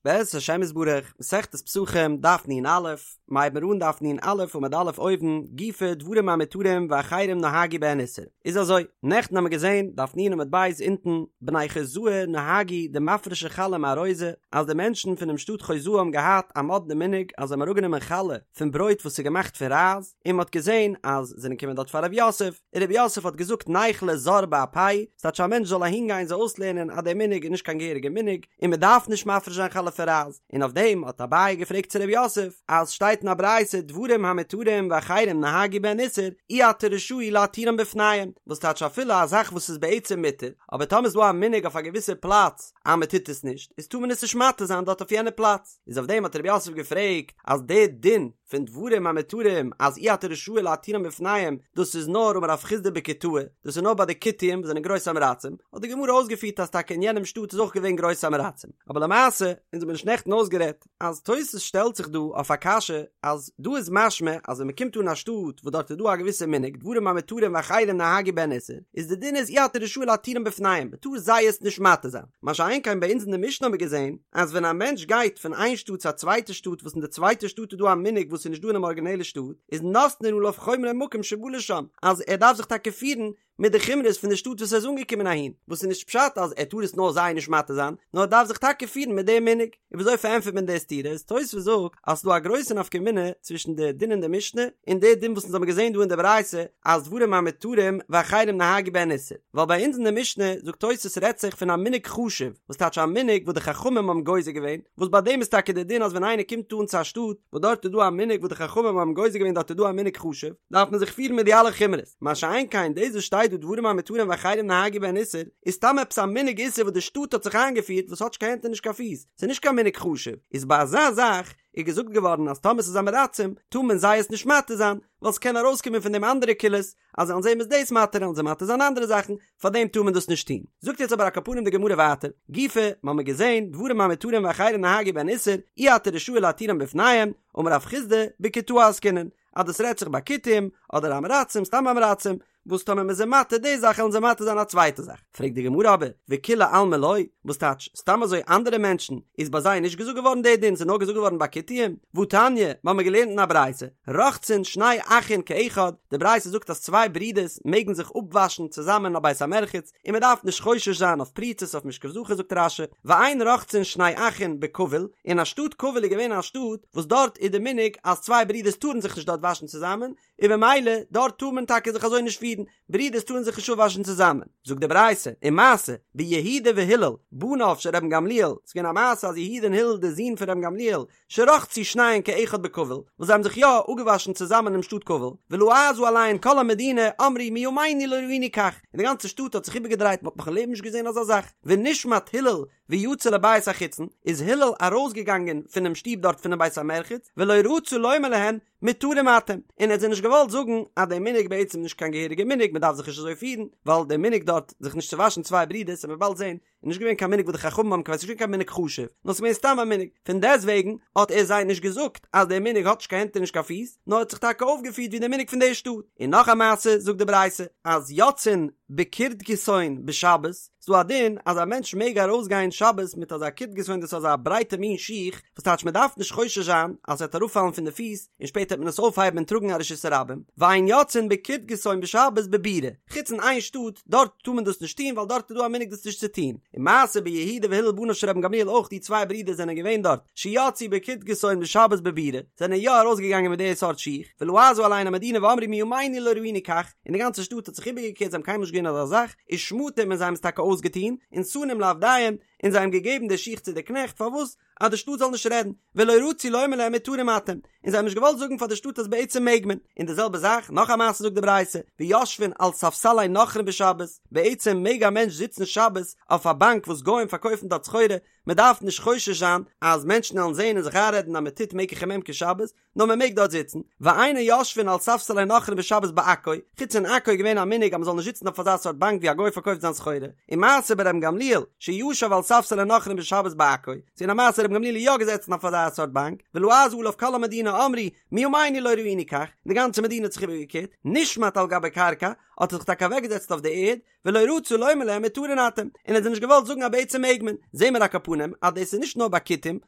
בעזרת השם יתברך, מסכת פסחים, דף נ"א, מ'הייבן מיר אן דף נ"א עמוד א' אויבן, גופא דברים המותרים ואחרים נהגו בהן איסור. איז אזוי, נעכטן האמיר געזען, דף נ עמוד ב' אונטן, בני חוזאי נהגו דמפרשי חלה מארוזא, אז די מענטשן פונעם שטאט חוזאי האבן געהאט א מאדנע מנהג אז זיי האבן אראפגענומען חלה פון ברויט וואס איז געמאכט פון רייז, און מ'האט געזען אז זענען געקומען דארט פאר רב יוסף, און רב יוסף האט געזאגט ניכלה זר באפייהו, ס'טייטש א מענטש זאל אהינגיין זיי אויסלערנען אז דער מנהג איז נישט קיין געהעריגע מנהג, און מען דארף נישט מפריש זיין חלה פון רייז, און אויף דעם האט אביי געפרעגט צו רב יוסף, אז שטייט אין א ברייתא דברים המותרים ואחרים נהגו בהן איסור, אי אתה רשאי להתירם בפניהם, וואס טייטש אפילו א זאך וואס איז בעצם מותר, אבער טאמער איז דא א מנהג אויף א געוויסע פלאץ אז מען טוט עס נישט, איז טאר מען עס נישט מתיר זיין דארט אויף יענע פלאץ, איז אויף דעם האט רב יוסף געפרעגט אז דער דין פון דברים המותרים אז אי אתה רשאי להתירם בפניהם, דאס איז נאר אמר רב חסדא בכותאי, דאס איז נאר ביי די כותים וואס זענען גרויסע עם הארצים, האט די גמרא אויסגעפירט אז טאקע אין יענעם שטאט איז אויך געווען גרויסע עם הארצים, אבער למעשה, אונז האבן נישט נעכטן אויסגערעדט, אז תוס' שטעלט זיך דא אויף א קשיא אז דא איז משמע אז ווען מען קומט אן א שטאט וואס דארט איז דא א געוויסע מנהג דברים המותרים ואחרים נהגו בהן איסור, איז די דין איז אי אתה רשאי להתירם בפניהם, מען טאר זיי עס נישט מתיר זיין. מה שאין כן ביי אונז אין די משנה האבן מיר געזען אז ווען א מענטש גייט פון איין שטאט צו א צווייטע שטאט וואס אין די צווייטע שטאט איז דא א מנהג וואס איז נישט דא אינעם ארגינעלע שטאט איז נותנין עליו חומרי מקום שבא לשם אז ער דארף זיך טאקע פירן מיט די חומרות פון די שטאט וואס ער איז אנגעקומען אהין וואס איז נישט פשט אז ער טאר עס נאר זיי נישט מתיר זיין נאר ער דארף זיך טאקע פירן מיט דעם מנהג. און וויאזוי פארענטפערט מען די סתירה? איז תוספות זאגט אז ס'דא א גרויסע נפקא מינה צווישן די דין אין די משנה און די דין וואס אונז האבן געזען דא אין די ברייתא אז דברים המותרים ואחרים נהגו בהן איסור, ווייל ביי אונז אין די משנה זאגט תוספות רעדט זיך פון א מנהג חשוב, וואס טייטש א מנהג וואס די חכמים האבן גוזר געווען, וואס ביי דעם איז טאקע די דין אז ווען איינער קומט אן צו א שטאט וואס דארט איז דא א מנהג וואס די חכמים האבן גוזר געווען דארט איז דא א מנהג חשוב, דארף מען זיך פירן מיט די אלע חומרות. מה שאין כן דאס וואס שטייט דא דברים המותרים ואחרים נהגו בהן איסור, איז סתם עפעס א מנהג איסור וואס די שטאט האט זיך איינגעפירט וואס האט נישט קיין הענט און נישט קיין פיס, ס'איז נישט קיין מנהג חשוב, איז ביי אזא זאך איז געזאגט געווארן אז טאמער ס'איז עם הארצים טאר מען זיי עס נישט מתיר זיין, ווייל ס'קען ארויסקומען פון דעם אנדערע קולות, אז זיי וועלן זעהן מ'איז דאס מתיר וועלן זיי מתיר זיין אנדערע זאכן, פארדעם טאר מען דאס נישט טון. זאגט יעצט אבער על כל פנים די גמרא ווייטער, גופא, מ'האמיר געזעהן, דברים המותרים ואחרים נהגו בהן איסור, אי אתה רשאי להתירם בפניהם, אמר רב חסדא, בכותאי עסקינן, אז דאס רעדט זיך ביי כותים, אדער עם הארצים, סתם עם הארצים, וואס טאמער מ'איז זיי מתיר די זאך וועלן זיי מתיר זיין א צווייטע זאך. פרעגט די גמרא אבער, וכולי עלמא לא, וואס טייטש, סתם אזוי אנדערע מענטשן, איז ביי זיי נישט געזאגט געווארן די דין, ס'איז נאר געזאגט געווארן ביי כותים? והתניא, מ'האמיר געלערנט אין א ברייתא, רוחצין שני אחין כאחד, די ברייתא זאגט אז צוויי ברידערס מעגן זיך אפוואשן צוזאמען אין א בית המרחץ, און מען דארף נישט חושש זיין אויף פריצות אויף משכב זכר זאגט רש"י, ואין רוחצין שני אחין בכבול, אין א שטאט כבול איז געווען א שטאט וואס דארט איז די מנהג אז צוויי ברידערס טארן זיך נישט דארט וואשן צוזאמען, און במילא דארט טאר מען טאקע זיך אזוי נישט פירן, ברידערס טארן זיך נישט אפוואשן צוזאמען. זאגט די ברייתא, ומעשה ביהודה והלל בניו של רבן גמליאל, ס'איז געווען א מעשה אז יהודה און הלל די זין פון רבן גמליאל, שרחצו שניהן כאחד בכבול, וואס זיי האבן זיך יא אפגעוואשן צוזאמען אינעם שטאט כבול, ולעזה עליהן כל המדינה, אמרו מימינו לא ראינו כך, און די גאנצע שטאט האט זיך איבערגעדרייט מען האט נאך אין לעבן נישט געזען אזא זאך, ונשמט הלל ויצא לבית החיצון, איז הלל ארויסגעגאנגען פונעם שטוב דארט פונעם בית המרחץ, ולא רצה לומר להן מותרים אתם, און ער האט זיי נישט געוואלט זאגן אז דער מנהג בעצם נישט קיין געהעריגע מנהג מען דארף זיך נישט אזוי פירן, ווייל דער מנהג דארט זיך נישט צו וואשן צוויי ברידערס וועט מען באלד זען איז נישט געווען קיין מנהג וואס די חכמים האבן קובע, ס'איז נישט געווען קיין מנהג חשוב, נאר ס'איז געווען סתם א מנהג, פון דעסטוועגן האט ער זיי נישט געזאגט אז דער מנהג האט נישט קיין הענט און נישט קיין פיס, נאר האט זיך טאקע אויפגעפירט ווי דער מנהג פון דער שטאט. און נאך א מעשה זאגט די ברייתא, אז יוצאין בקורדקיסון בשבת, ס'דא א דין אז א מענטש מעג ארויסגיין שבת מיט אזא קורדקיסון דאס איז אזא ברייטע מין שיך, וואס טייטש מען דארף נישט חושש זיין אז ס'וועט אראפפאלן פון די פיס, און שפעטער וועט מען עס אויפהייבן און טראגן א רשות הרבים, ואין יוצאין בקורדקיסון בשבת בבירה, חוץ אין איין שטאט, דארט טאר מען דאס נישט טון ווייל דארט איז דא א מנהג דאס נישט צו טון, ומעשה ביהודה והלל בניו של רבן גמליאל אויך די צוויי ברידער זענען געווען דארט, שיצאו בקורדקיסון בשבת בבירה, זענען יא ארויסגעגאנגען מיט די סארט שיך, ולעזה עליהן המדינה ואמרו מימינו לא ראינו כך, און די גאנצע שטאט האט זיך איבערגעקערט זיי האבן קיינמאל נישט געזען אזא זאך, ושמטום און זיי האבן עס טאקע אויסגעטון, ונתנום לעבדיהם, און זיי האבן געגעבן די שיך צו די קנעכט, פארוואס? אז די שטאט זאל נישט רעדן, ולא רצו לומר להם מותרים אתם, און זיי האבן נישט געוואלט זאגן פאר די שטאט אז בעצם מעג מען, און די זעלבע זאך, נאך א מעשה זאגט די ברייתא, ויושבין על ספסלי נכרים בשבת, בעצם מעג א מענטש זיצן שבת אויף א באנק וואס גוים פארקויפן דארט סחורה, מען דארף נישט חושש זיין אז מענטשן וועלן זען און זיך איינרעדן אז מען טוט מקח וממכר שבת, נאר מען מעג דארט זיצן, ואין יושבין על ספסלי נכרים בשבת בעכו, חוץ אין עכו איז געווען א מנהג אז מען זאל נישט זיצן אויף אזא סארט באנק ווי א גוי פארקויפט זיין סחורה, ומעשה ברבן גמליאל, שישב על ספסלי נכרים בשבת בעכו, ס'איז געווען א מעשה רבן גמליאל איז יא געזעצן אויף אזא סארט באנק, ולעזה עליו כל המדינה אמרו, מימינו לא ראינו כך, די גאנצע מדינה האט זיך איבערגעקערט, נשמט על גבי קרקע, האט ער זיך טאקע אוועקגעזעצט אויף די ערד, ולא רצה לומר להם מותרין אתם, און ער האט זיי נישט געוואלט. געוואלט זאגן אז בעצם מעג מען, זעהן מיר על כל פנים אז דאס איז נישט נאר ביי כותים,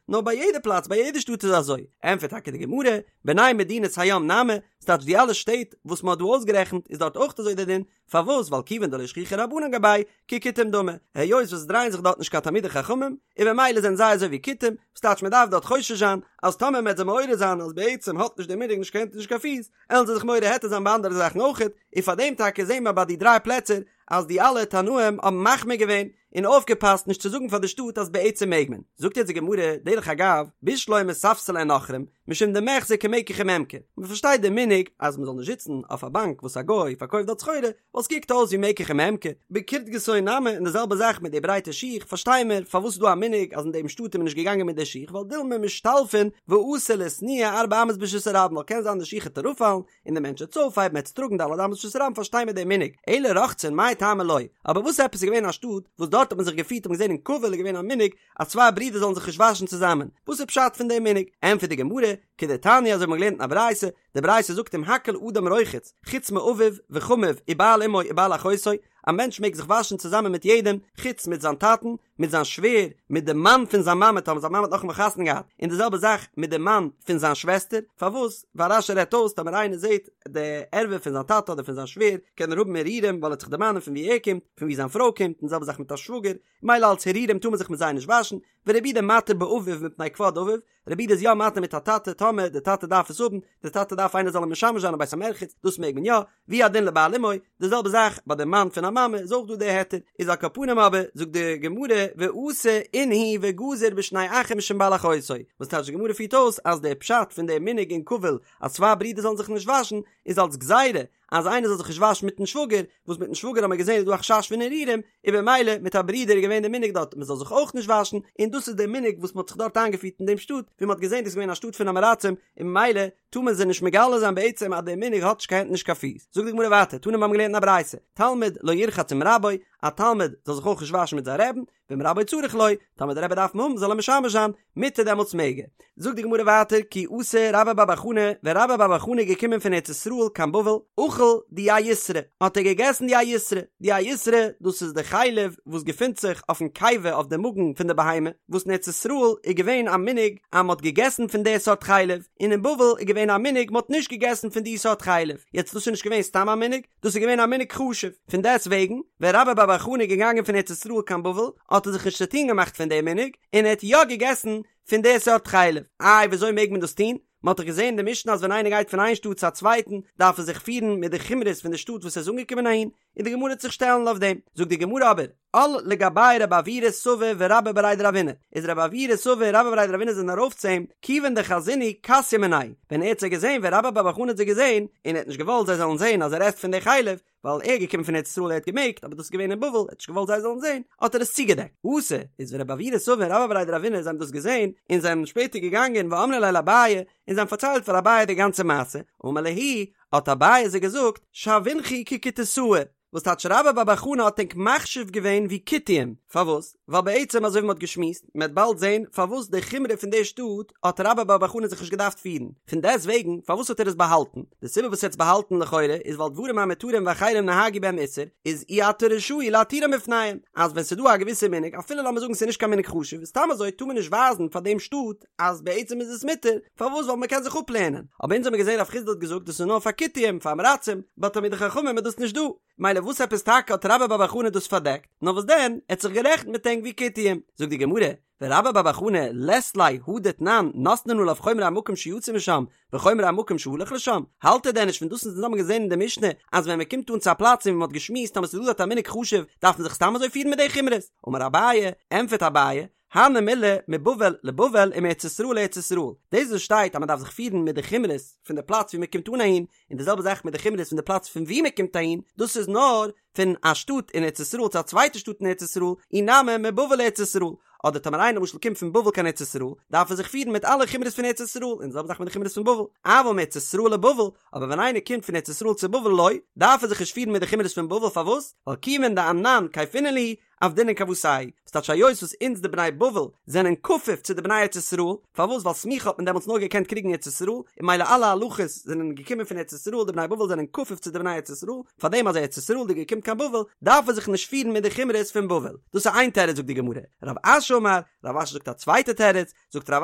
נאר ביי יעדע פלאץ ביי יעדע שטאט איז אזוי, ענטפערט טאקע די גמרא, בני מדינת הים נמי, ס'טייטש די אלע שטעט וואס מ'האט דא אויסגערעכנט איז דארט אויך אזוי דער דין, פארוואס ווייל כיוון דלא שכיחי רבנן גבייהו ככותים דמו, היות וואס עס דרייען זיך דארט נישט קיין תלמידי חכמים, און במילא זענען זיי אזוי ווי כותים, ס'טייטש מ'דארף דארט חושש זיין אז טאמער מ'עט זיי מעורר זיין אז בעצם האט נישט דער מנהג נישט קיין הענט און נישט קיין פיס, עלן זיי זיך מורה היתר זיין ביי אנדערע זאכן אויכעט, און פאר דעם טאקע זעהן מיר ביי די דריי פלעצער אז די אלע תנאים האבן מחמיר געווען און אויפגעפאסט נישט צו זאגן פאר די שטאט אז בעצם מעג מען. זאגט יעצט די גמרא, דרך אגב, בשלמא ספסלי נכרים, משום דמיחזי כמקח וממכר, מען פארשטייט די מנהג אז מען זאל נישט זיצן אויף א באנק וואס א גוי פארקויפט דארט סחורה, ווייל ס'קוקט אויס ווי מקח וממכר, בקורדקיסון נמי און די זעלבע זאך מיט די ברייטע שיך, פארשטיי מיר פארוואס איז דא א מנהג אז אין דעם שטאט איז מען נישט געגאנגען מיט די שיך ווייל דילמא משתלפין ואתי לאיתנויי ארבע אמות ברשות הרבים ווייל קען זיין די שיך העט אראפפאלן און די מענטש העט עס אויפהייבן העט עס טראגן ד' אמות ברשות הרבים פארשטיי מיר די מנהג אלא רוחצין מאי טעמא לא אבער וואס עפעס איז געווען א שטאט וואס דארט האט מען זיך געפירט האט מען געזען אין כבול איז געווען א מנהג אז צוויי ברידער זאלן זיך נישט וואשן צוזאמען וואס איז פשט פון די מנהג ענטפערט די גמרא כדתניא אזוי האט מען געלערנט אין א ברייתא די ברייתא זאגט אם הכל אדם רוחץ חוץ מאביו וחמיו ובעל אמו ובעל אחותו, א מענטש מעג זיך וואשן צוזאמען מיט יעדעם חוץ מיט זיין טאטן, מיט זיין שווער, מיט די מאן פון זיין מאמע טאמער זיין מאמע האט נאכאמאל חתונה געהאט, און די זעלבע זאך מיט די מאן פון זיין שוועסטער, פארוואס? ווייל רש"י רעדט אויס טאמער איינער זעט די ערווה פון זיין טאטע אדער פון זיין שווער קען ער האבן הרהורים ווייל ער וועט זיך דערמאנען פון ווי ער קומט, פון ווי זיין פרוי קומט, און די זעלבע זאך מיט א שוואגער, מילא אלץ הרהורים טאר מען זיך מיט זיי נישט וואשן, ורבי יהודה מתיר באביו מפני כבוד אביו, רבי יהודה איז יא מתיר מיט א טאטע טאמער די טאטע דארף עס האבן, די טאטע דארף איינער זאל אים משמש זיין אין בית המרחץ, דאס מעג מען יא, והוא הדין לבעל אמו, די זעלבע זאך ביי די מאן פון א מאמע איז אויך דא די היתר, איז על כל פנים אבער זאגט די גמרא ואתא אינהו וגזור בשני אחים משום בעל אחותו, וואס טייטש די גמרא פירט אויס אז די פשט פון די מנהג אין כבול אז צוויי ברידער זאלן זיך נישט וואשן איז אלס גזירה אז איינער זאל זיך נישט וואשן מיטן שוואגער, וואס מיטן שוואגער האט מען געזען איז דא א חשש פון הרהורים, און במילא מיט א ברודער איז געווען די מנהג דארט מען זאל זיך אויך נישט וואשן, און דאס איז די מנהג וואס מען האט זיך דארט איינגעפירט אין דעם שטאט, ווי מען האט געזען דאס איז געווען א שטאט פון עם הארצים, און ממילא טאר מען זיי נישט מגלה זיין בעצם אז דער מנהג האט נישט קיין הענט נישט קיין פיס. זאגט די גמרא ווייטער, תנא מיר האבן געלערנט אין א ברייתא, תלמיד לא ירחץ עם רבו, א תלמיד זאל זיך אויך נישט וואשן מיט זיין רעבן, ואם רבו צריך לו, טאמער דער רבי דארף אים האבן זאל ער משמש זיין, מותר דעמאלטס מעג ער. זאגט די גמרא ווייטער כי אתא רבה בר בר חנה, ווען רבה בר בר חנה איז געקומען פון ארץ ישראל קיין בבל, אכל דיאיסרא, האט ער געגעסן דיאיסרא, דיאיסרא דאס איז די חלב וואס געפינט זיך אויפן קיבה אויף די מאגן פון די בהמה, וואס אין ארץ ישראל איז געווען א מנהג אז מען האט געגעסן פון די סארט חלב, און אין בבל איז געווען א מנהג מען האט נישט געגעסן פון די סארט חלב, יעצט דאס איז נישט געווען סתם א מנהג, דאס איז געווען א מנהג חשוב, פון דעסט וועגן, ווען רבה בר בר חנה איז געגאנגען פון ארץ ישראל קיין בבל, האט ער זיך נישט צוטון געמאכט פון דעם מנהג, און ער האט יא געגעסן פון די סארט חלב. איי וויאזוי מעג מען דאס טון? מען האט דאך געזען אין די משנה אז ווען איינער גייט פון איין שטאט צו א צווייטן, דארף ער זיך פירן מיט די חומרות פון די שטאט וואס ער איז אנגעקומען אהין, און די גמרא וועט זיך שטעלן אויף דעם. זאגט די גמרא אבער, על לגביה רב עוירא סבא ורבה בריה דרבינא, איז רב עוירא סבא און רבה בריה דרבינא זענען ארויף צו אים, כיוון דחזינהו כסייה מיניה, ווען ער האט זיי געזען, ווען רבה בר בר חנה האט זיי געזען, און ער האט נישט געוואלט זיי זאלן זען אז ער עסט פון די חלב, ווייל ער איז געקומען פון ארץ ישראל ער האט געמעגט, אבער דאס איז געווען אין בבל, ער האט נישט געוואלט זיי זאלן זען, האט ער עס צוגעדעקט. אתו, איז ווען רב עוירא סבא און רבה בריה דרבינא זיי האבן דאס געזען, און זיי זענען שפעטער געגאנגען ואמרי ליה לאביי, און זיי האבן פארציילט פאר אביי די גאנצע מעשה, אמר להו, האט אביי זיי געזאגט, שוינכו ככותאי, וואס טייטש רבה בר בר חנה האט ענק מחשיב געווען ווי כותים, פארוואס? ווייל בעצם אזוי ווי מ'האט געשמועסט, מ'עט באלד זען פארוואס די חומרא פון די שטאט האט רבה בר בר חנה זיך נישט געדארפט פירן, פון דעסט וועגן פארוואס האט ער עס באהאלטן? די סיבה וואס ער האט עס באהאלטן לכאורה איז ווייל דברים המותרים ואחרים נהגו בהם איסור, איז אי אתה רשאי להתירם בפניהם, אז ווען ס'דא א געוויסע מנהג אפילו לאמיר זאגן ס'איז נישט קיין מנהג חשוב, סתם אזוי טאר מען נישט ווייזן פאר דעם שטאט אז בעצם איז עס מותר, פארוואס ווייל מען קען זיך אפלערנען, אבער אונז האמיר געזען רב חסדא האט געזאגט דאס איז נאר פאר כותים, פאר עם הארצים, ביי תלמידי חכמים איז דאס נישט דא, מילא וואס עפעס טאקע האט רבה בר בר חנה דאס פארדעקט, נאר וואס דען, ער האט זיך גערעכנט מיט ענק ווי כותים, זאגט די גמרא, ורבה בר בר חנה לית ליה הא דתנן נותנין עליו חומרי המקום שיצא משם וחומרי המקום שהלך לשם, האלט ער דען נישט פון דאס וואס אונז האבן געזען אין די משנה אז ווען מען קומט אן צו א פלאץ און ווי מען האט געשמועסט אז עס איז דא דארט א מנהג חשוב דארף מען זיך סתם אזוי פירן מיט די חומרות, אמר אביי, ענטפערט אביי, הני מילי מבבל לבבל ומארץ ישראל לארץ ישראל, דאס וואס שטייט אז מען דארף זיך פירן מיט די חומרות פון די פלאץ ווי מען קומט אן אהין, און די זעלבע זאך מיט די חומרות פון די פלאץ פון ווי מען קומט אהין, דאס איז נאר פון א שטאט אין ארץ ישראל צו א צווייטע שטאט אין ארץ ישראל, אי נמי מבבל לארץ ישראל, אדער טאמער איינער למשל קומט פון בבל קיין ארץ ישראל, דארף ער זיך פירן מיט אלע חומרות פון ארץ ישראל, און די זעלבע זאך מיט די חומרות פון בבל, אבל מארץ ישראל לבבל, אבער ווען איינער קומט פון ארץ ישראל צו בבל לא, דארף ער זיך נישט פירן מיט די חומרות פון בבל, פארוואס? ווייל כיוון דאנן כייפינן להו, עבדינן כוותייהו, ס'טייטש היות וואס אונז די בני בבל זענען כפוף צו די בני ארץ ישראל, פארוואס ווייל סמיכה האט מען דעמאלטס נאר געקענט קריגן ארץ ישראל, און ממילא אלע הלכות זענען געקומען פון ארץ ישראל, די בני בבל זענען כפוף צו די בני ארץ ישראל, פארדעם אז ארץ ישראל'דיגער קומט קיין בבל דארף ער זיך נישט פירן מיט די חומרות פון בבל, דאס איז איין תירוץ זאגט די גמרא, רב אשי אמר, רב אשי זאגט א צווייטע תירוץ, זאגט רב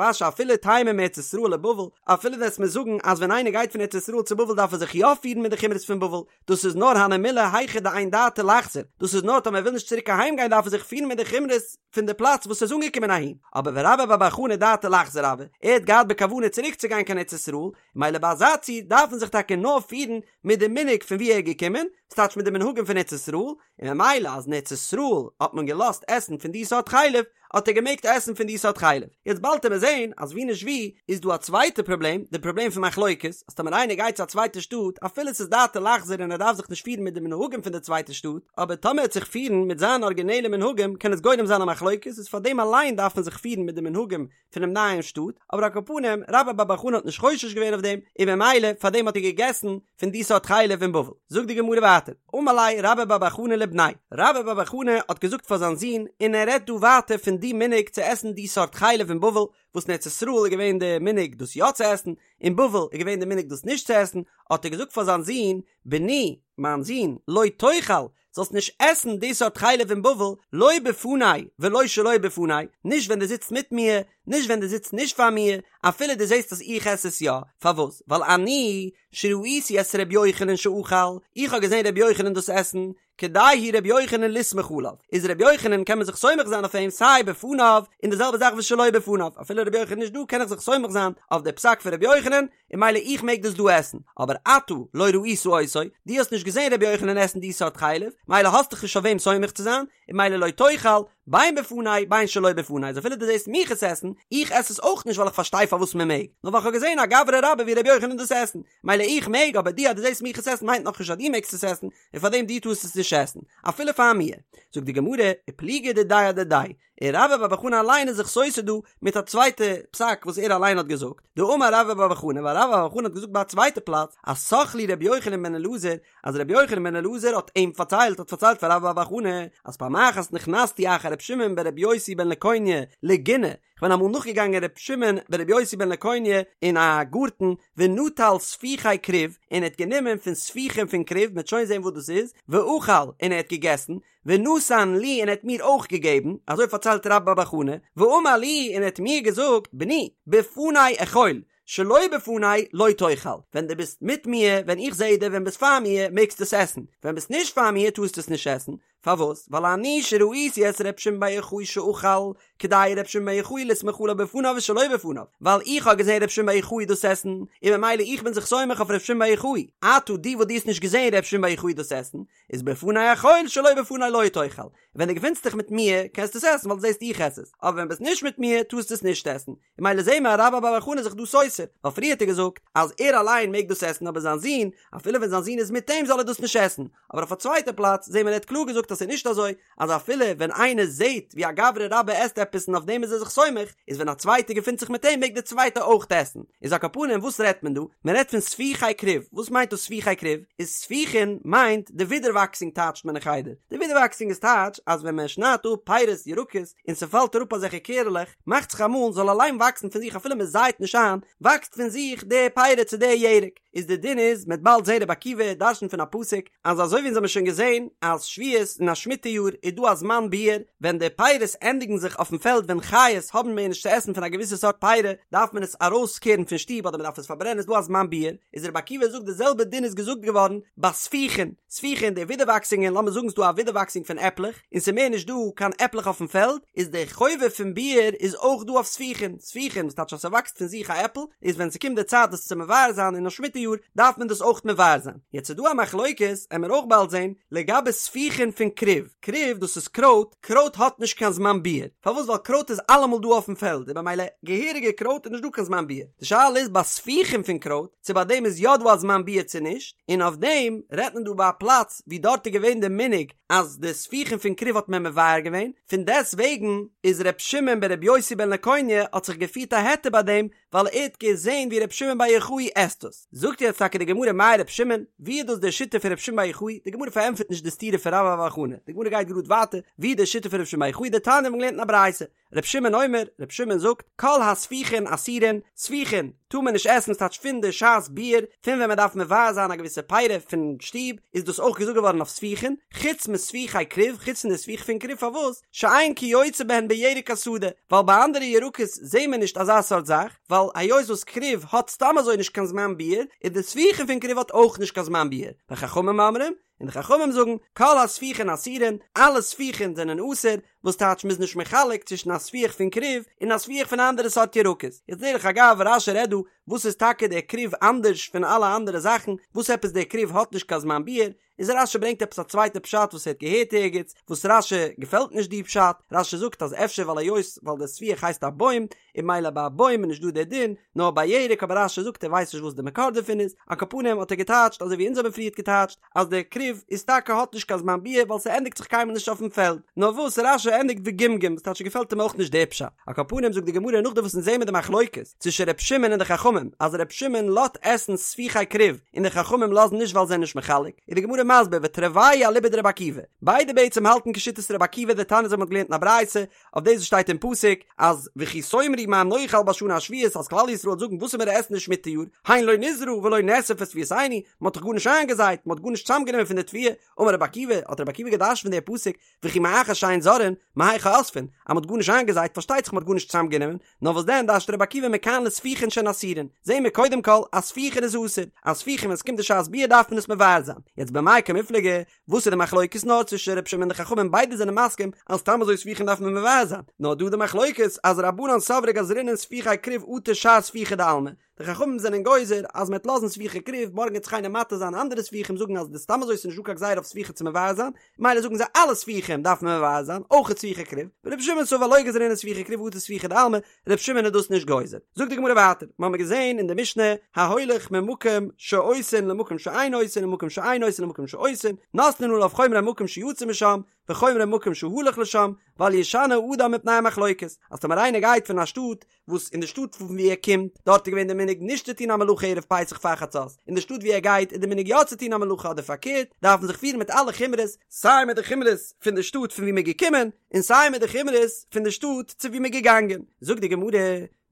אשי אפילו תימא מארץ ישראל לבבל, אפילו וועסט מיר זאגן אז ווען איינער גייט פון ארץ ישראל צו בבל דארף ער זיך יא פירן מיט די חומרות פון בבל, דאס איז נאר הני מילי היכא דאין דעתו לחזור, דאס איז נאר טאמער ער וויל נישט צוריק אהיים גיין דארף ער זיך פירן מיט די חומרות פון די פלאץ וואס ער איז אנגעקומען אהין, אבער ורבה בר בר חנה דעתו לחזור הוה, ער האט געהאט בכוונה צוריק צו גיין קיין ארץ ישראל, מילא ביי אזא ציור דארף מען זיך טאקע נאר פירן מיט די מנהג פון ווי ער איז געקומען, ס'טייטש מיט די מנהגים פון ארץ ישראל, און ממילא אז אין ארץ ישראל האט מען געלאזט עסן פון די סארט חלב, האט ער געמעגט עסן פון די סארט חלב. יעצט באלד עמיר זעהן אז ווי נישט ווי איז דא א צווייטע פראבלעם, די פראבלעם פון מחלוקת, אז טאמער איינער גייט צו א צווייטע שטאט, אפילו ס'איז דעתו לחזור און ער דארף זיך נישט פירן מיט די מנהגים פון די צווייטע שטאט, אבער טאמער ער וועט זיך פירן מיט זיינע ארגינעלע מנהגים קען עס גורם זיין א מחלוקת, איז פאר דעם אליין דארף מען זיך פירן מיט די מנהגים פונעם נייעם שטאט, אבער על כל פנים, רבה בר בר חנה האט נישט חושש געווען אויף דעם, און ממילא פאר דעם האט ער געגעסן פון די סארט חלב אין בבל. זאגט די גמרא ווייטער, אמר ליה רבה בר בר חנה לבניה, רבה בר בר חנה האט געזאגט פאר זיין זון, און ער רעדט דא ווייטער פון די מנהג צו עסן די סארט חלב אין בבל, וואס אין ארץ ישראל איז געווען די מנהג דאס יא צו עסן, אין בבל איז געווען די מנהג דאס נישט צו עסן, האט ער געזאגט פאר זיין זון, בני, מיין זון, לא תאכל, זאלסט נישט עסן די סארט חלב אין בבל, לא בפני ולא שלא בפני, נישט ווען דו זיצט מיט מיר, נישט ווען דו זיצט נישט פאר מיר, אפילו דו זעסט אז איך עס עס יא, פארוואס? ווייל אני שראיתי את ר' יוחנן שאכל, איך האב געזען ר' יוחנן דאס עסן, כדאי הוא ר' יוחנן לסמוך עליו, איז ר' יוחנן קען מען זיך סומך זיין אויף אים סיי בפניו, און די זעלבע זאך ושלא בפניו, אפילו ר' יוחנן איז נישט דא קען איך זיך סומך זיין אויף די פסק פון ר' יוחנן, און ממילא איך מעג דאס דא עסן, אבער אתה לא ראית אותו, דו האסט נישט געזען רבי יוחנן עסן די סארט חלב, מילא האסט דיך נישט אויף וועם סומך צו זיין, און מילא לא תאכל, בין בפני בין שלא בפני, אז אפילו דו זעסט מיך עס עסן, איך עס עס אויך נישט ווייל איך פארשטיי פארוואס מען מעג, נאר ווייל איך האב געזען א גברא רבה ווי רבי יוחנן דאס עסן, מילא איך מעג, אבער דו אז דו זעסט מיך עס עסן מיינט נאכנישט אז דו מעגסט עס עסן, און פארדעם דו טארסט עס נישט עסן, אפילו פאר מיר. זאגט די גמרא, ופליגא דידיה אדידיה, און רבה בר בר חנה אליין איז זיך סותר דא מיט א צווייטע פסק וואס ער אליין האט געזאגט, דאמר רבה בר בר חנה ווייל רבה בר בר חנה האט געזאגט ביי א צווייטע פלאץ אז סח לי רבי יוחנן בן אלעזר אז רבי יוחנן בן אלעזר האט אים פארציילט האט פארציילט פאר רבה בר בר חנה אז פעם אחת נכנסתי אחר רבי שמעון ברבי יוסי בן לקוניא לגינה כ'בין אמאל נאכגעגאנגען רבי שמעון ברבי יוסי בן לקוניא אין א גארטן ונטל ספיחי כרוב און ער האט גענומען פון ספיחים פון כרוב מ'וועט שוין זען וואס דאס איז ואכל און ער האט געגעסן ונתן לי און ער האט מיר אויך געגעבן, אזוי פארציילט רבה בר בר חנה, ואמר לי און ער האט מיר געזאגט, בני, בפני אכול, שלא בפני לא תאכל, ווען דו ביסט מיט מיר, ווען איך זע דיר, ווען ביסט פאר מיר, מעגסטו עס עסן, ווען ביסט נישט פאר מיר, טארסטו עס נישט עסן, פארוואס? ווייל אני שראיתי את ר' שמעון בר יוחאי שאכל, כדאי ר' שמעון בר יוחאי לסמוך עליו בפניו ושלא בפניו, ווייל איך האב געזען ר' שמעון בר יוחאי דאס עסן, און ממילא איך בין זיך סומך אויף ר' שמעון בר יוחאי, אתה דו וואס דו האסט נישט געזען ר' שמעון בר יוחאי דאס עסן, איז בפני אכול שלא בפני לא תאכל, ווען דו געפינסט דיך מיט מיר קענסטו עס עסן ווייל דו זעסט איך עס עס, אבער ווען ביסט נישט מיט מיר טארסטו עס נישט עסן, און ממילא זעהן מיר אז רבה בר בר חנה איז זיך דא סותר, ווייל פריער האט ער געזאגט אז ער אליין מעג דאס עסן אבער זיין זון, אפילו ווען זיין זון איז מיט אים זאל ער דאס נישט עסן, אבער אויף א צווייטע פלאץ זעהן מיר ער האט קלאר געזאגט אז ס'איז נישט אזוי, אז אפילו ווען איינער זעהט ווי א גברא רבה עסט עפעס און אויף דעם איז ער זיך סומך, איז ווען א צווייטער געפינט זיך מיט אים מעג דער צווייטער אויך עסן. איז על כל פנים וואס רעדט מען דא? מען רעדט פון ספיחי כרוב. וואס מיינט דאס ספיחי כרוב? איז ספיחין מיינט די ווידערוואקסונג טייטשט מען אין חדר. די ווידערוואקסונג איז טייטש אז ווען מען שניידט אפ פירות ירקות און ס'פאלט אראפ אזעלכע קערעלעך, מאכט זיך אמאל זאל אליין וואקסן פון זיך אפילו מען זייט נישט איין, וואקסט פון זיך די פירות צו די ירק. איז די דין איז מ'עט באלד זעהן רבי עקיבא דרש'נט פון א פסוק אז אזוי ווי אונז האבן שוין געזעהן אז שביעית אין א שמיטה יאר איז דא א זמן ביעור ווען די פירות ענדיגן זיך אויפן פעלד ווען חיות האבן מער נישט צו עסן פון א געוויסע סארט פירה דארף מען עס ארויסקערן פון שטוב אדער מ'דארף עס פארברענען איז דא א זמן ביעור איז רבי עקיבא זאגט די זעלבע דין איז געזאגט געווארן ביי ספיחין ספיחין די ווידערוואקסונגען לאמיר זאגן ס'דא א ווידערוואקסונג פון עפלעך און ס'איז מער נישט דא קיין עפלעך אויפן פעלד, איז די חובה פון ביעור איז אויך דא אויף ספיחין, ספיחין וואס טייטש אז ס'וואקסט פון זיך א עפל, איז ווען ס'קומט די צייט דאס צו מבער זיין אין א שמיטה יאר, דארף מען דאס אויך מבער זיין. יעצט איז דא א מחלוקת, עמער אויך באלד זען, לגבי ספיחין פון כרוב, כרוב דאס איז קרויט, קרויט האט נישט קיין זמן ביעור, פארוואס ווייל קרויט איז אלעמאל דא אויפן פעלד, און במילא געהעריגע קרויט איז נישט דא קיין זמן ביעור, די שאלה איז ביי ספיחין פון קרויט, צו ביי דעם איז יא דא א זמן ביעור צו נישט, און אויף דעם רעדט מען דא ביי א פלאץ ווי דארט איז געווען די מנהג אז די ספיחין פון כרוב האט מען מבער געווען, פון דעסט וועגן איז ר' שמעון בר' יוסי בן לקוניא האט זיך געפירט א היתר ביי דעם, ווייל ער האט געזען ווי ר' שמעון בר יוחאי עסט עס. זאגט זאגט יעצט טאקע די גמרא מאי ר' שמעון, ווי איז דאס די שיטה פון ר' שמעון בר יוחאי, די גמרא פארענטפערט נישט די סתירה פון רבה בר בר חנה, די גמרא גייט גראד ווייטער, ווי איז די שיטה פון ר' שמעון בר יוחאי, דתניא מיר האבן געלערנט אין א ברייתא, ר' שמעון אומר, ר' שמעון זאגט, כל הספיחין אסורין, ספיחין טאר מען נישט עסן ס'טייטש פון די שעת ביעור, פון ווען מען דארף מבער זיין א געוויסע פירי פון שטוב, איז דאס אויך געזאגט געווארן אויף ספיחין, חוץ מספיחי כרוב, חוץ פון די ספיח פון כרוב, פארוואס? שאין כיוצא בהן בירק השדה, ווייל ביי אנדערע ירקות זעהן מיר נישט אזא סארט זאך, ווייל היות וואס כרוב האט סתם אזוי נישט קיין זמן ביעור, איז די ספיחין פון כרוב האט אויך נישט קיין זמן ביעור, וחכמים אומרים, און די חכמים זאגן, כל הספיחין אסורין, אלע ספיחין זענען אסור, וואס טייטש מ'איז נישט מחלק צווישן א ספיח פון כרוב און א ספיח פון אנדערע סארט ירקות. יעצט דרך אגב, רש"י רעדט דא, וואס איז טאקע דער כרוב אנדערש פון אלע אנדערע זאכן, וואס עפעס דער כרוב האט נישט קיין זמן ביעור, איז רש"י ברענגט עפעס א צווייטע פשט וואס ער האט געהערט ערגעץ, וואס רש"י געפעלט נישט די פשט, רש"י זאגט אז אפשר ווייל היות ווייל דער ספיח הייסט א בוים, און ממילא ביי א בוים איז נישט דא דער דין, נאר ביי ירק, אבער רש"י זאגט ער ווייסט נישט וואס די מקור דערפון איז, על כל פנים האט ער געטייטשט אזוי ווי אונז האבן פריערט געטייטשט, אז דער כרוב איז טאקע האט נישט קיין זמן ביעור ווייל ס'ענדיגט זיך קיינמאל נישט אויפן פעלד, נאר וואס רש"י ענדיגט וגמגום וואס טייטש געפעלט אים אויך נישט דער פשט, על כל פנים זאגט די גמרא נאכדעם וואס אונז זעהן מיר די מחלוקת צווישן ר' שמעון און די חכמים אז ר' שמעון לאזט עסן ספיחי כרוב און די חכמים לאזן נישט ווייל זיי זענען נישט מחלק, איז די גמרא מסביר ותרוייהו אליבא דרבי עקיבא, ביידע בעצם האלטן כשיטת רבי עקיבא דתניא אזוי מ'האט געלערנט אין א ברייתא אויף דאס וואס שטייט אין פסוק אז וכי תאמרו מה נאכל בשנה השביעית אז כלל ישראל וועט זאגן וואס וועלן מיר עסן די שמיטה יאר, הן לא נזרע ולא נאסף את תבואתנו, מען האט דאך גארנישט איינגעזייט, מען האט גארנישט צוזאמגענומען פון די תבואה, אמר רבי עקיבא, האט רבי עקיבא געדרש'ט פון די פסוק, וכי מאחר שאין זורעין, מהיכא אוספין, אז מען האט גארנישט איינגעזייט פארשטייט זיך מען האט גארנישט צוזאמגענומען, נאר וואס דען דרש'ט רבי עקיבא מכאן לספיחין שהן אסורין, זעהן מיר קודם כל אז ספיחין איז אסור, אז ספיחין ווען עס קומט די שעת ביעור דארף מען עס מבער זיין, יעצט במאי קמיפלגי, וואס איז די מחלוקת נאר צווישן ר' שמעון און די חכמים ביידע זענען מסכים אז סתם אזוי ספיחין דארף מען מבער זיין נאר דא די מחלוקת אז רבנן סברי גזרינן ספיחי כרוב אטו שאר ספיחי דעלמא די חכמים זענען גוזר אז מען וועט לאזן ספיחי כרוב מארגן וועט זיך איינער מתיר זיין אנדערע ספיחים זאגן אז די סתם אזוי איז נישט דא קיין גזירה אויף ספיחי צו מבער זיין ממילא זאגן זיי אלע ספיחים דארף מען מבער זיין אויך ספיחי כרוב ור' שמעון סבר לא גזרינן ספיחי כרוב אטו ספיחי דעלמא ר' שמעון איז דאס נישט גוזר. זאגט די גמרא ווייטער, מיר האבן געזען אין די משנה, ההולך ממקום שעושין למקום שאין עושין וממקום שאין עושין למקום שעושין, נותנין עליו חומרי מקום שיצא משם, וחומרי מקום שהלך לשם, ואל ישנה אדם מפני המחלוקת, אז טאמער איינער גייט פון א שטאט, וואס אין די שטאט פון ווי ער קומט, דארט איז געווען די מנהג נישט צו טון א מלאכה ערב פסח פאר חצות, אין די שטאט ווי ער גייט איז די מנהג יא צו טון א מלאכה אדער פארקערט, דארף מען זיך פירן מיט אלע חומרות, סיי מיט די חומרות פון די שטאט פון ווי מען איז געקומען, און סיי מיט די חומרות פון די שטאט צו ווי מ'איז געגאנגען, זאגט די גמרא,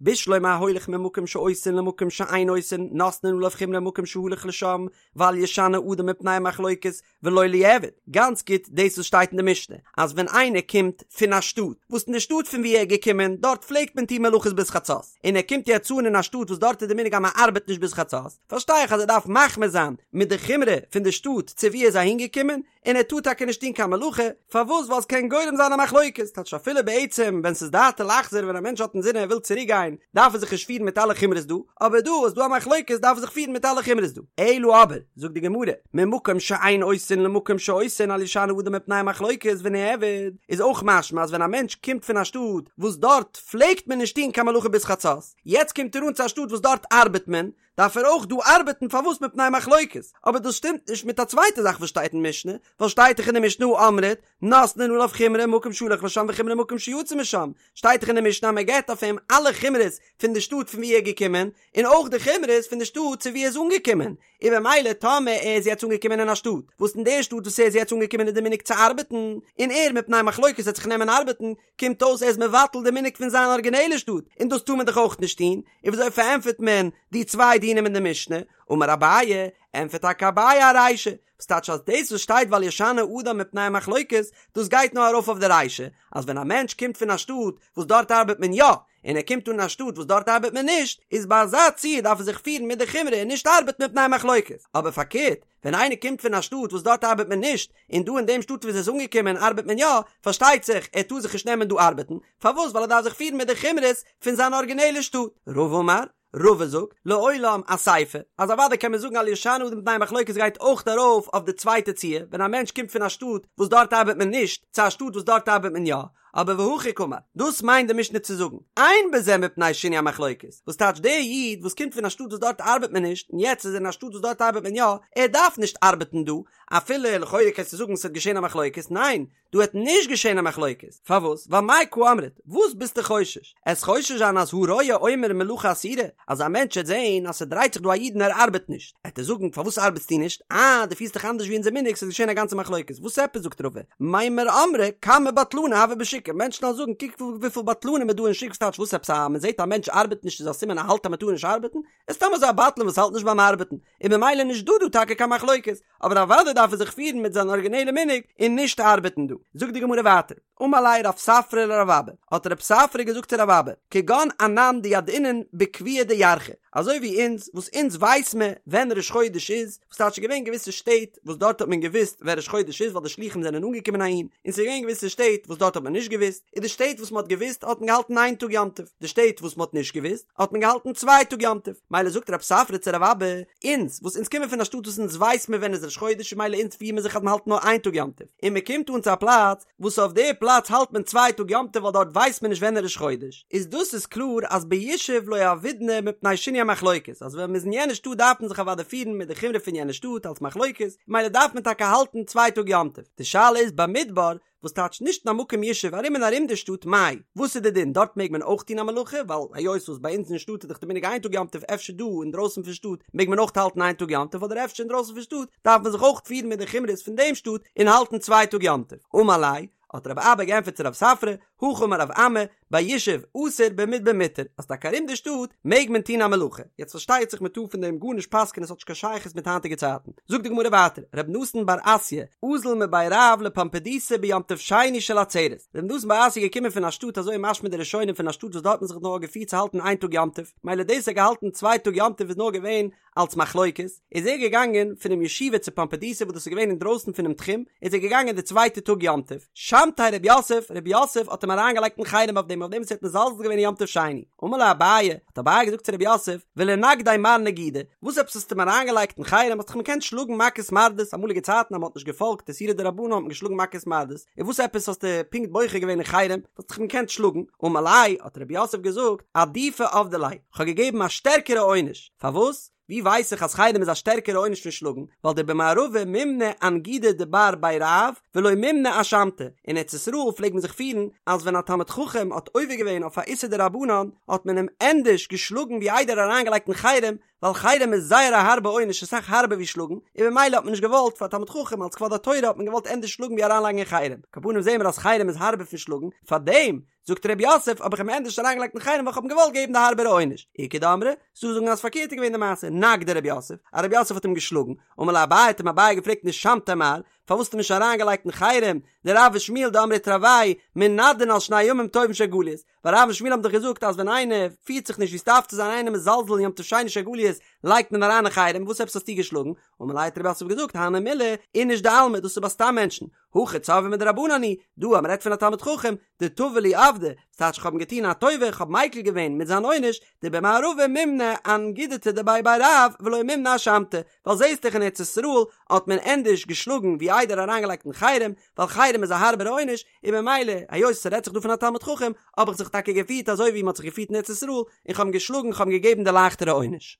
בשלמא ההולך ממקום שעושין למקום שאין עושין נותנין עליו חומרי מקום שהלך לשם ואל ישנה אדם מפני המחלוקת ולא ליעבד, גאנץ גוט דאס וואס שטייט אין די משנה אז ווען איינער קומט פון א שטאט וואס אין די שטאט פון ווי ער איז געקומען דארט פלעגט מען טון מלאכות ביז חצות און ער קומט יעצט אן אין א שטאט וואס דארט איז די מנהג אז מען ארבעט נישט ביז חצות פארשטיי איך אז ער דארף מחמיר זיין מיט די חומרא פון די שטאט צו ווי ער איז אהינגעקומען און ער טאר טאקע נישט טון קיין מלאכה, פארוואס? ווייל עס קען גורם זיין א מחלוקת, טייטש אפילו בעצם ווען ס'איז דעתו לחזור ווען א מענטש האט אינזין ער וויל צוריק גיין דארף ער זיך נישט פירן מיט אלע חומרות דא, אבער דא איז דא א מחלוקת דארף ער זיך פירן מיט אלע חומרות דא. אלא אבער, זאגט די גמרא, ממקום שאין עושין למקום שעושין אל ישנה אדם מפני המחלוקת ונעביד, איז אויך משמע אז ווען א מענטש קומט פון א שטאט וואס דארט פלעגט מען נישט טון קיין מלאכה ביז חצות, יעצט קומט ער אן צו א שטאט וואס דארט ארבעט מען, דארף ער אויך דא ארבעטן פארוואס מפני מחלוקת, אבער דאס שטימט נישט מיט א צווייטע זאך וואס שטייט אין משנה, ווייל שטייט דאך אין די משנה הא אמרת, נותנין עליו חומרי מקום שהלך לשם וחומרי מקום שיצא משם, שטייט דאך אין די משנה אז מען געבט אויף אים אלע חומרות פון די שטאט פון ווי ער איז געקומען, און אויך די חומרות פון די שטאט צו ווי ער איז אנגעקומען, און במילא טאמער ער איז יעצט אנגעקומען אין א שטאט, וואס אין די שטאט וואס ער איז יעצט אנגעקומען איז די מנהג צו ארבעטן, און ער מפני מחלוקת וועט זיך נעמען ארבעטן, קומט אויס ער איז מבטל די מנהג פון זיין ארגינעלע שטאט, און דאס טאר מען דאך אויך נישט טון, און וויאזוי פארענטפערט מען די צוויי דינים אין די משנה? אמר אביי, ענטפערט טאקע אביי ארישא, וואס טייטש אז דאס וואס שטייט ואל ישנה אדם מפני המחלוקת, דאס גייט נאר ארויף אויף די רישא, אז ווען א מענטש קומט פון א שטאט וואס דארט ארבעט מען יא, און ער קומט אן אין א שטאט וואס דארט ארבעט מען נישט, איז ביי אזא ציור דארף ער זיך פירן מיט די חומרא און נישט ארבעטן מפני המחלוקת, אבער פארקערט, ווען איינער קומט פון א שטאט וואס דארט ארבעט מען נישט, און דא אין דעם שטאט וואו ער איז אנגעקומען ארבעט מען יא, פארשטייט זיך ער טאר זיך נישט נעמען דא ארבעטן, פארוואס? ווייל ער דארף זיך פירן מיט די חומרות פון זיין ארגינעלע שטאט. רבא אמר, רבא זאגט, לעולם אסיפא, אז אוודאי קען מען זאגן אל ישנה אדם מפני מחלוקת גייט אויך ארויף אויף די צווייטע ציור, ווען א מענטש קומט פון א שטאט וואס דארט ארבעט מען נישט, צו א שטאט וואס דארט ארבעט מען יא, אבער והכי קאמר, דאס מיינט די משנה צו זאגן, אין בזה מפני שינוי המחלוקת, וואס טייטש דער איד וואס קומט פון א שטאט וואס דארט ארבעט מען נישט, און יעצט איז ער אין א שטאט וואס דארט ארבעט מען יא, ער דארף נישט ארבעטן דא, אפילו לכאורה קענסטו זאגן ס'וועט געשען א מחלוקת, ניין, דא וועט נישט געשען א מחלוקת, פארוואס? ווייל מאי קא אמרת, וואס ביסטו חושש? עסט חושש זיין אז הרואה אומר מלאכה אסורה, אז א מענטש העט זען אז ס'דרייט זיך דא א איד און ער ארבעט נישט, העט ער זאגן פארוואס ארבעטסטו נישט? אה, דו פירסט דיך אנדערש ווי אונזער מנהג, ס'איז געשען א גאנצע מחלוקת, וואס עפעס זאגט רבא, מימר אמרי כמה בטלני הוו בשוקא, מענטשן וועלן זאגן קוק וויפיל בטלנים איז דא אין שוק, ס'טייטש וואס עפעס אז מ'זעט א מענטש ארבעט נישט איז א סימן ער האלט אז מ'טאר נישט ארבעטן? איז סתם אזוי א בטלן וואס האלט נישט ביים ארבעטן, און ממילא נישט דא דא טאקע קיין מחלוקת, אבער אוודאי דארף ער זיך פירן מיט זיין ארגינעלע מנהג און נישט ארבעטן דא. זאגט די גמרא ווייטער, אמר ליה רב ספרא לרב אבא, האט רב ספרא געזאגט צו רב אבא, כגון אנן דידעינן בקביעא דירחא, אזוי ווי אונז וואס אונז ווייס מען ווען ראש חודש איז, וואס טייטש ס'איז געווען געוויסע שטעט וואס דארט האט מען געוואוסט ווען ראש חודש איז ווייל די שלוחים זענען אנגעקומען אהין, און ס'איז געווען געוויסע שטעט וואס דארט האט מען נישט געוואוסט, און די שטעט וואס מען האט געוואוסט האט מען געהאלטן איין טאג יום טוב, די שטעט וואס מען האט נישט געוואוסט האט מען געהאלטן צוויי טאג יום טוב, מילא זאגט רב ספרא צו רב אבא, אונז וואס אונז קומען פון א שטאט וואס אונז ווייס מען ווען איז ראש חודש און מילא אונז פירן מיר זיך אז מען האלט נאר איין טאג יום טוב, און מען קומט אן צו א פלאץ וואס אויף די פלאץ האלט מען צוויי טאג יום טוב ווייל דארט ווייסט מען נישט ווען איז ראש חודש, איז דאס איז קלאר אז בישוב לא עבידנא מפני שינוי המחלוקת, אז ווען מען איז אין יענע שטאט דארף מען זיך אוודאי פירן מיט די חומרא פון יענע שטאט אלס מחלוקת, מילא דארף מען טאקע האלטן צוויי טאג יום טוב, די שאלה איז במדבר וואס טייטש נישט אין א מקום ישוב ארום און ארום די שטאט מאי, וואס איז די דין דארט מעג מען אויך טון א מלאכה ווייל היות וואס ביי אונז אין שטאט איז דאך די מנהג איין טאג יום טוב אפשר דא אינדרויסן פון שטאט מעג מען אויך האלטן איין טאג יום טוב אדער אפשר אינדרויסן פון שטאט דארף מען זיך אויך פירן מיט די חומרות פון דעם שטאט און האלטן צוויי טאג יום טוב אמר ליה האט רב אבא געענטפערט צו רב ספרא הכי אמר רב אמי ביישוב אסור במדבר מותר, אז טאקע ארום די שטאט מעג מען טון א מלאכה, יעצט פארשטייט זיך מען טאר פון דעם גארנישט פסק'ענען עס האט נישט קיין שייכות מיט היינטיגע צייטן, זאגט די גמרא ווייטער, ר' נתן בר אסיא, אזל מבי רב לפומבדיתא ביום טוב שני של עצרת, ר' נתן בר אסיא איז געקומען פון א שטאט אזוי משמע די ראשונים פון א שטאט וואס דארט האט מען זיך נאר געפירט צו האלטן איין טאג יום טוב, מילא דאס ער האט געהאלטן צוויי טאג יום טוב איז נאר געווען אלס מחלוקת, איז ער געגאנגען פונעם ישיבה צו פומבדיתא וואס דאס איז געווען אינדרויסן פונעם תחום, איז ער געגאנגען די צווייטע טאג יום טוב, שמתיה רב יוסף, רב יוסף האט אים אריינגעלייגט אין חרם אויף דעם אויף דעם וואס ער האט מזלזל געווען אין יום טוב שני, אמר ליה אביי, האט אביי געזאגט צו רב יוסף, ולנגדיה מר נגידא, וואס עפעס האסטו אים אריינגעלייגט אין חרם, האסט דאך אים געקענט שלאגן מכות מרדות, אמאליגע צייטן אז מען האט נישט געפאלגט איסורי דרבנן האט מען געשלאגן מכות מרדות, און וואס עפעס האסטו פונקט בוחר געווען אין חרם, האסט דאך אים געקענט שלאגן, אמר ליה, האט רב יוסף געזאגט, עדיפא עבדי ליה, כ'האב געגעבן א שטערקערע עונש, פארוואס? ווי ווייס איך אז חרם איז א שטערקערע עונש פון שלאגן? ווייל דבמערבא מימנע אנגידא דבר בי רב ולא מימנע אשמתא, אין ארץ ישראל פלעג מען זיך פירן אז ווען א תלמיד חכם האט עובר געווען אויף א איסור דרבנן האט מען אים ענדערש געשלאגן ווי איידער אריינגעלייגט אין חרם, ווייל חרם איז זייער א הארבע עונש אסאך הארבער ווי שלאגן, און ממילא האט מען נישט געוואלט פאר א תלמיד חכם אלס כבוד התורה האט מען געוואלט ענדערש שלאגן ווי אריינלייגן אין חרם, על כל פנים זעהן מיר אז חרם איז הארבער פון שלאגן, פארדעם זאגט ר' יוסף האב איך אים ענדערש אריינגעלייגט אין חרם ווייל כ'האב אים געוואלט געבן די הארבערע עונש. איכא דאמרי, ס'דא זאגן אז פארקערט איז געווען די מעשה, נגדיה ר' יוסף, אז ר' יוסף האט אים געשלאגן, אמר ליה אביי האט אים אביי געפרעגט נישמתיה מר, פארוואס האסטו אים נישט אריינגעלייגט אין חרם, דרב ושמואל דאמרי תרוייהו מנדין על שני ימים טובים של גליות, ווייל רב און שמואל האבן דאך געזאגט אז ווען איינער פירט זיך נישט ווי ס'דארף צו זיין איינער מזלזל אין יום טוב שני של גליות לייגט מען אריין אין חרם, וואס עפעס האסטו געשלאגן? אמר ליה האט ר' יוסף געזאגט הני מילי איניש דעלמא דאס איז ביי סתם מענטשן, הכא צורבא מדרבנן הוא, דא אז מ'רעדט פון א תלמיד חכם, דטבא לי עבדא, ס'טייטש כ'האב אים געטון א טובה, כ'האב מיקל געווען מיט זיין עונש, דבמערבא מימנע אנגידתא דבי בי רב ולא מימנע אשמתא, ווייל זעהסט דאך אין ארץ ישראל האט מען ענדערש געשלאגן ווי איידער אריינגעלייגט אין חרם, ווייל חרם איז א הארבערע עונש, און ממילא היות ס'רעדט זיך דא פון א תלמיד חכם, האב איך זיך טאקע געפירט אזוי ווי מ'האט זיך געפירט אין ארץ ישראל, און כ'האב אים געשלאגן, כ'האב אים געגעבן די לייכטערע עונש.